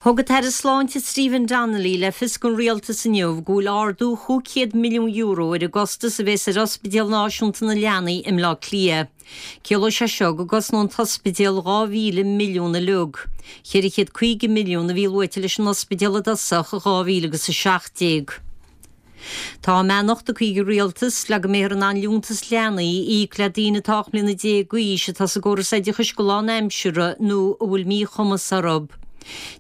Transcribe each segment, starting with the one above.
Thug an tAire Sláinte Stephen Donnelly le fios don Rialtas inniu go bhfuil ardú €500 milliún ar an gcostas a bhéas ar Ospidéal Náisiúnta na Leanaí i mBleá Cliath. Ciallóidh sé seo go gcosnóidh an t-ospidéal 2,000 milliún uilig. 450 milliún a bhí luaite leis an ospidéal i dtosach i 2017. Tá a mbeannacht tugtha ag an Rialtas le go mbeifear in ann liúntas leanaí a íoc le daoine atá 18 mbliana d'aois atá sa gcóras oideachais go lánaimseartha nó a bhfuil míchumas orthu.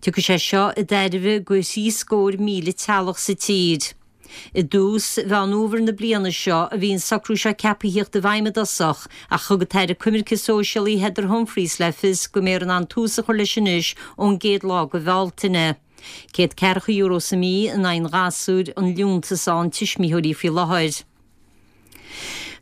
Tiocfaidh sé seo i dtairbhe go 73,000 teaghlach sa tír. I dtús Mheán Fhómhair na bliana seo a bhí an socrú seo ceaptha a thíocht i bhfeidhm i dtosach ach thug an tAire Coimirce Sóisialaí Heather Humphreys le fios go mbeifear in ann tús a chur leis anois ón gcéad lá de Bhealtaine. €140 sa mhí in aghaidh an ghasúir an liúntas a fhaigheann tuismitheoirí faoi láthair.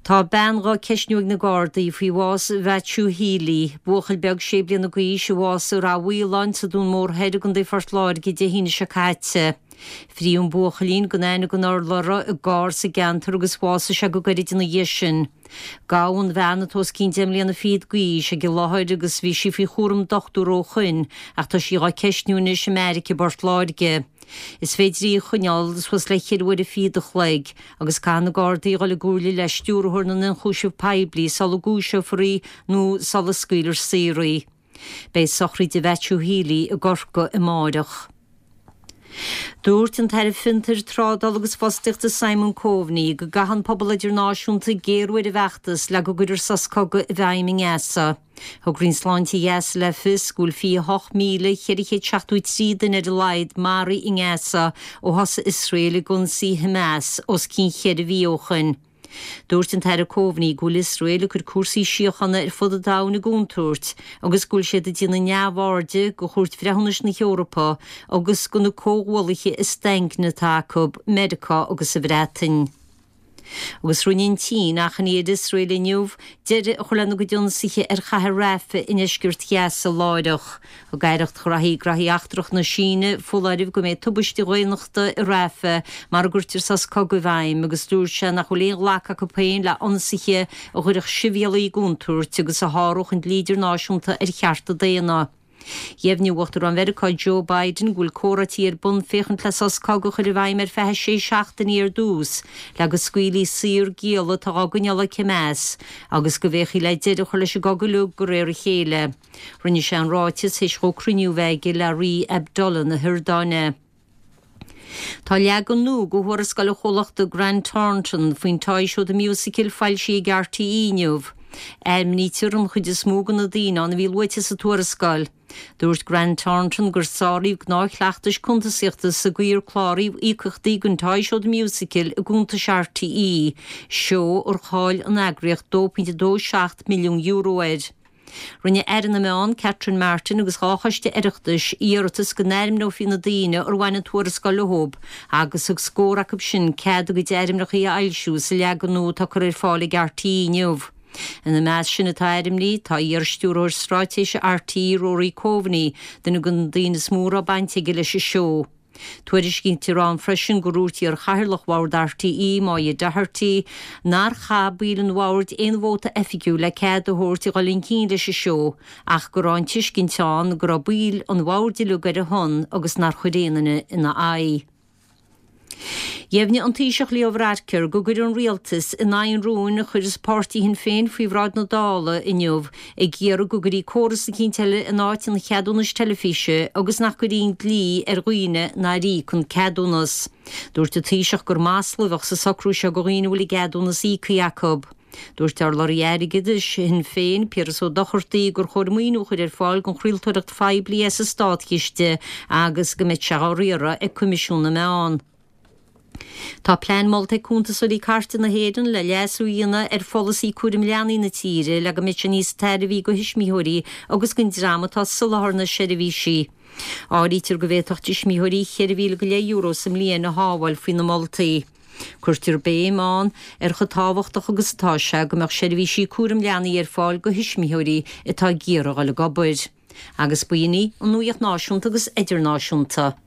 Tá bean dhá ceistniú ag na Gardaí faoi bhás Mhaitiú Healy, buachaill beag sé bliana d'aois a bhásaigh i Rath Mhaoláin sa Dún Mór Thoir i gContae Phort Láirge Dé hAoine seo caite. Frítheadh an buachaillín gan aithne gan urlabhra i gcarr sa gceantar agus bhásaigh sé go gairid ina dhiaidh sin. Gabhadh an bhean atá os cionn deich mbliana fichead d'aois ag an láthair agus bhí sí faoi chúram dochtúra ó shoin ach tá sí dhá ceistniú anois i mbeairic i bPort Láirge. Is féidir í a choinneáil suas le cheithre huaire fichead a chloig agus caithfidh na Gardaí a dhul i gcomhairle le Stiúrthóir na nIonchúiseamh Poiblí sula gcúiseofar í nó sula scaoilfear saor í. Beidh sochraid Mhaitiú Healy i gCorcaigh amáireach. Dúirt an tAire Fiontair, Trádála agus Fostaíochta Simon Coveney go gcaithfidh an pobal idirnáisiúnta géarú ar an bhfeachtas le go gcuirfear sos cogaidh i bhfeidhm i nGaza. Thug Roinn Sláinte Ghaza le fios go bhfuil 28,473 duine ar a laghad maraithe i nGaza ó thosaigh Iosrael ag ionsaí Hamas os cionn cheithre mhí ó shoin. Dúirt an tAire Coveney go bhfuil Iosrael ag cur cúrsaí síochána ar fud an domhain i gcontúirt agus go bhfuil siad ag déanamh neamhairde de Chúirt Bhreithiúnais na hEorpa agus de na comhghuallaithe is daingne atá acu, Meiriceá agus an Bhreatain. Agus rinne an tSín achainí ar Iosrael inniu deireadh a chur lena gcuid ionsaithe ar chathair Rafah i ndeisceart Ghaza láithreach. Thug Aireacht Ghraithí Graithí Eachtracha na Síne foláireamh go mbeidh tubaiste dhaonnachta i Rafah mara gcuirtear sos cogaidh i bhfeidhm agus dúirt sé nach bhfuil aon ghlacadh acu féin le ionsaithe a chuirfeadh sibhialaigh i gcontúirt agus a sháródh an dlí idirnáisiúnta ar chearta daonna. Dheimhnigh Uachtarán Mheiriceá Joe Biden go bhfuil comhráití ar bun féachaint le sos cogaidh a chur i bhfeidhm ar feadh sé seachtainí ar dtús le go scaoilfí saor gialla atá á gcoinneáil ag Hamas agus go bhféachfaí le deireadh a chur leis an gcogadh uilig de réir a chéile. Rinne sé an ráiteas théis dhó cruinniú a bheith aige le Rí Abdullah na hIordáine. Tá leagan nua de thuarascáil an chomhlachta Grant Thornton faoin Toy Show The Musical foilsithe ag RTÉ inniu. Ainmnítear an chuid is mó de na daoine ann a bhí luaite sa tuarascáil. Dúirt Grant Thornton gur sáraíodh gnáthchleachtais cuntasaíochta sa gcaoi ar cláraíodh íocaíochtaí don Toy Show The Musical i gcuntais RTÉ, seó ar chaill an eagraíocht €2.27 milliún air. Rinne Aire na Meán, Catherine Martin agus 2 choiste Oireachtais iarratas go n-ainmneofaí na daoine ar bhain an tuarascáil leo agus thug scór acu sin cead a gcuid ainmneacha a fhoilsiú sa leagan nua atá curtha ar fáil ag RTÉ inniu. Ina measc sin atá ainmnithe tá iar-stiúrthóir straitéise RTÉ Rory Coveney, duine de na daoine is mó a raibh baint aige leis an seó. Tuairiscítear ann freisin gur dhúirt iar-chathaoirleach bhord RTÉ, Moya Doherty, nár chaith baill an bhoird aon vóta oifigiúil le cead a thabhairt a dhul chun cinn leis an seó ach go raibh an tuiscint ann go raibh baill an bhoird uilig ar a shon agus nár chuir aon duine ina aghaidh. Dheimhnigh an Taoiseach Leo Varadkar go gcuirfidh an Rialtas in aghaidh an rúin a chuir páirtí Shinn Féin faoi bhráid na Dála inniu ag iarraidh go gcuirfí córas eicínt eile in áit an cheadúnais teilifíse agus nach gcuirfí an dlí ar dhaoine nár íoc an ceadúnas. Dúirt an Taoiseach gur masla a bheadh sa socrú seo do dhaoine a bhfuil a gceadúnas íoctha acu. Dúirt urlabhraí airgeadais Shinn Féin, Piaras Ó Dochartaigh, gur chóir maoiniú a chur ar fáil don chraoltóireacht phoiblí as an státchiste agus go mbeadh sé á riaradh ag Coimisiún na Meán. Tá plean molta ag Cuntasóirí Cairte na hÉireann le leasú a dhéanamh ar pholasaí cúraim leanaí na tíre le go mbeidh sé níos tairbhí do thuismitheoirí agus don dream atá ag soláthar na seirbhísí. Áirítear go bhféadfadh tuismitheoirí €4,000 go leith sa mbliain a shábháil faoi na moltaí. Cuirtear béim ann ar chomh tábhachtach agus atá sé go mbeadh seirbhísí cúraim leanaí ar fáil do thuismitheoirí atá ag iarraidh a dhul ag obair. Agus b'in í an nuaíocht náisiúnta agus idirnáisiúnta.